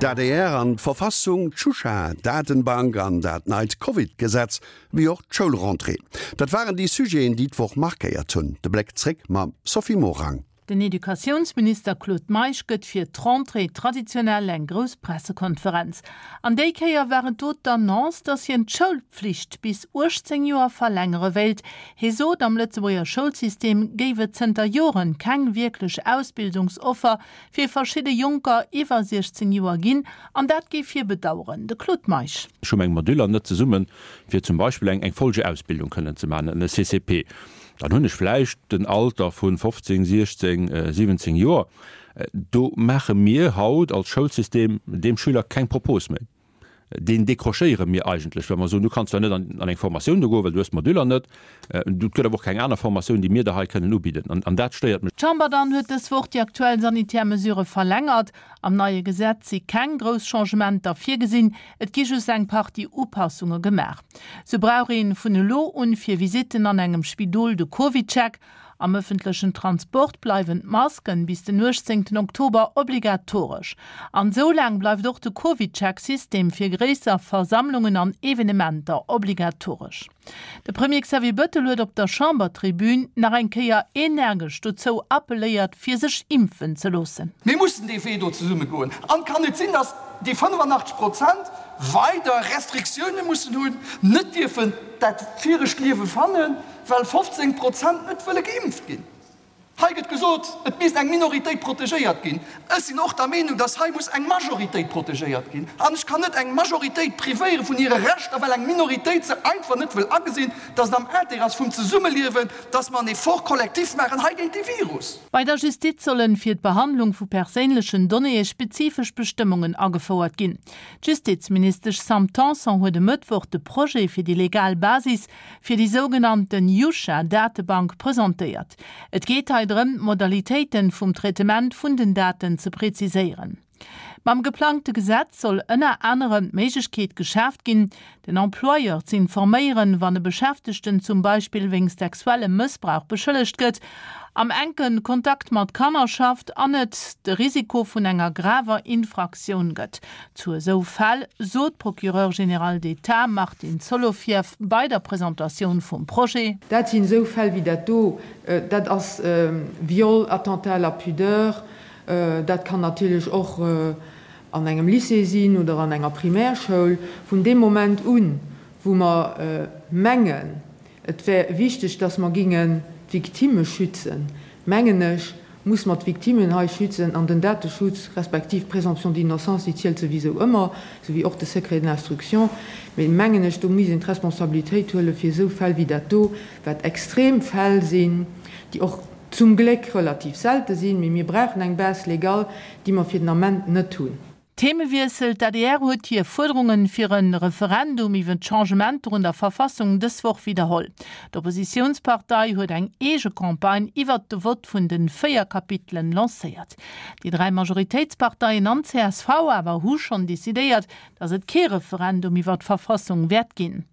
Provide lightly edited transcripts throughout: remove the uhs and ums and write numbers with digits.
D'ADR an d'Verfassung, d'Shusha Datenbank an dat neit Covid-Gesetz, wéi och d'Schoulrentrée, dat waren déi Sujeten, déi d'Woch markéiert hunn. De Bléck zréck mam Sophie Morang. Den Educatiounsminister Claude Meisch gëtt fir d'Rentrée traditionell eng grouss Pressekonferenz. An déi Kéier war et do d'Annonce, datt hien d'Schoulpflicht bis 18 Joer verlängere wéilt. Hie sot, am Lëtzebuerger Schoulsystem géif et zënter Joren keng wierklech Ausbildungsoffer fir verschidde Jonker iwwer 16 Joer ginn, an dat géif hie bedaueren. De Claude Meisch. Ech hu meng Moduler net zesummen, fir zum Beispill eng Folgeausbildung kënnen ze maachen, e CCP. Dann hunn ech vläicht den Alter vu 15, 16, 17 Joer. Do maache mir haut als Schoulsystem deem Schüler keng Propos méi. Deen décrochéiere mir eigentlech, well mer soen, du kanns zwar net an eng Formatioun do goen, well du hues d'Moduler net. Et gëtt awer och keng aner Formatioun, déi mir der hei kënnen ubidden. An dat stéiert mech. D'Chamber dann huet dës Woch déi aktuell sanitär Mesurë verlängert. Am neie Gesetz si keng grouss Changementer virgesinn, et gi just eng Partie Upassunge gemaach. Sou brauch een vun elo un fir Visitten an engem Spidol de CovidCheck. Am ëffentlechen Transport bleiwen d'Masken bis den 18 Oktober obligatoresch. An sou laang bleift och de CovidCheck-System fir gréisser Versammlungen an Evenementer obligatoresch. De Premier Xavier Bëttel huet op der Chambertribün nach eng Kéier energesch dozou appelléiert, fir sech impfen ze loossen. Mir mussen dee Wee do zesumme goen. An et kann net sinn, datt déi 85 Prozent weider Restriktioune mussen hunn, net dierfen dat viregt Liewe fannen, well 15 Prozent net wëlle geimpft ginn. Hei gëtt gesot, et misst eng Minoritéit protegéiert ginn. Ech sinn och der Meenung, dass hei muss eng Majoritéit protegéiert ginn. An ech kann net eng Majoritéit privéiere vun hire Rechter, well eng Minoritéit se einfach net wëll agesinn, dass et am Intérêt ass vum Zesummeliewen, dass mer en Effort collectif maachen hei géint dee Virus. Bei der Justiz sollen fir d'Behandlung vu perséinlechen Donnéeë spezifesch Bestëmmungen agefouert ginn. D'Justizministesch Sam Tanson huet e Mëttwoch de Projet fir déi legal Basis fir déi sougenannten Yusha-Datebank presentéiert. Et geet hei drëm, d'Modalitéiten vum Traitement vun den Daten ze preziséieren. Mam geplangte Gesetz soll ënner anerem d'Méiglechkeet geschaaft ginn, den Employeur z'informéieren, wann e Beschäftegten zum Beispill wéinst sexuellem Mëssbrauch beschëllegt gëtt, am enke Kontakt mat Kanner schafft an et de Risiko vun enger graver Infraktioun gëtt. Zu esou Fäll, sot d'Procureure générale d'État Martine Solovieff bei der Presentatioun vum Projet. Dat sinn esou Fäll wéi dat do, dat ass Viol, Attentat à la pudeur, dat kann natierlech och an engem Lycée sinn oder an enger Primärschoul. Vun deem Moment un, wou mer mengen, et wär wichteg, dass mer gingen d'Victimme schützen, mengen ech, muss mer d'Victimmen hei schützen an den Dateschutz respektiv d'Présomption d'innocence, déi zielt souwisou ëmmer, souwéi och de Secret de l'instruction. Mee mengen ech, do misst een d'Responsabilitéit huelen, fir esou Fäll wéi dat do, wat extrem Fäll sinn, déi och zum Gléck relativ selte sinn, mee mir brauchen eng Base légale, déi mer fir den Ament net hunn. Themewiessel, D'ADR huet hir Fuerderungen fir e Referendum iwwe d'Changementer un der Verfassung dës Woch widderholl. D'Oppositiounspartei huet eng eege Campagne iwwert de Vott vun de 4 Kapitelen lancéiert. Déi 3 Majoritéitsparteien an csv awer hu schonn decidéiert, datt et kee Referendum iwwer d'Verfassung wäert ginn.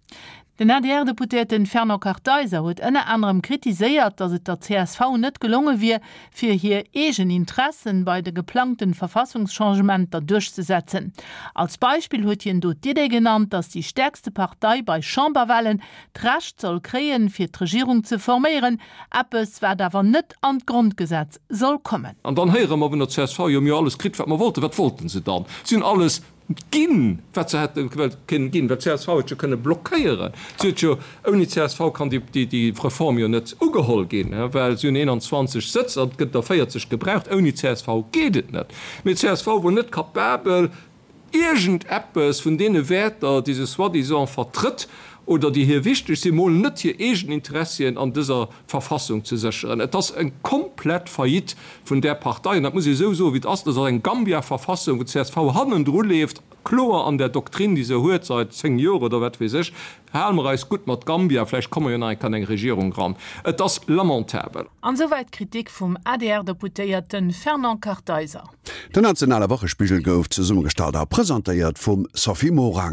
Den ADR-Deputéierten Fernand Kartheiser huet ënner anerem kritiséiert, datt et der csv net gelonge wier, fir hir eegen Interessen bei de geplangten Verfassungschangementer duerchzesetzen. Als Beispill huet hien do d'Idee genannt, datt déi stäerkste Partei bei Chamberwahlen d'Recht soll kréien, fir d'Regierung ze forméieren, eppes wat awer net an d'Grondgesetz soll kommen. An dann héiere mer vun der csv, jo mir hu alles kritt, wat mer wollten. Wat wollten se dann? Si hunn alles Ginn, wat se hätte kënnen ginn, well csv huet jo kënne blockéieren. Si huet jo, ouni csv kann déi Reform jo net ugeholl ginn, well si hunn 21 Sëtz an et gëtt der 40 gebraucht. Ouni csv geet et net. Mee csv wor net capabel, iergendeppes vun deene Wäerter, déi se soi-disant vertrëtt oder déi hir wichteg sinn, mol net hir eegen Interessien an dëser Verfassung ze sécheren. Et ass eng komplett Faillite vun där Partei, an dat muss ee esou soen, wéi et ass. Dat ass eng Gambia-Verfassung, wou d'CSV hannendru leeft, kloer an der Doktrin, déi se huet seit 10 Joer oder wat weess ech, Hale mer eis gutt mat Gambia, vläicht komme mer jo nach eng Kéier an eng Regierung eran. Et ass lamentabel. An esouwäit d'Kritik vum ADR-Deputéierte Fernand Kartheiser. Den nationale Wochespigel gouf zesummegestallt a presentéiert vum Sophie Morang.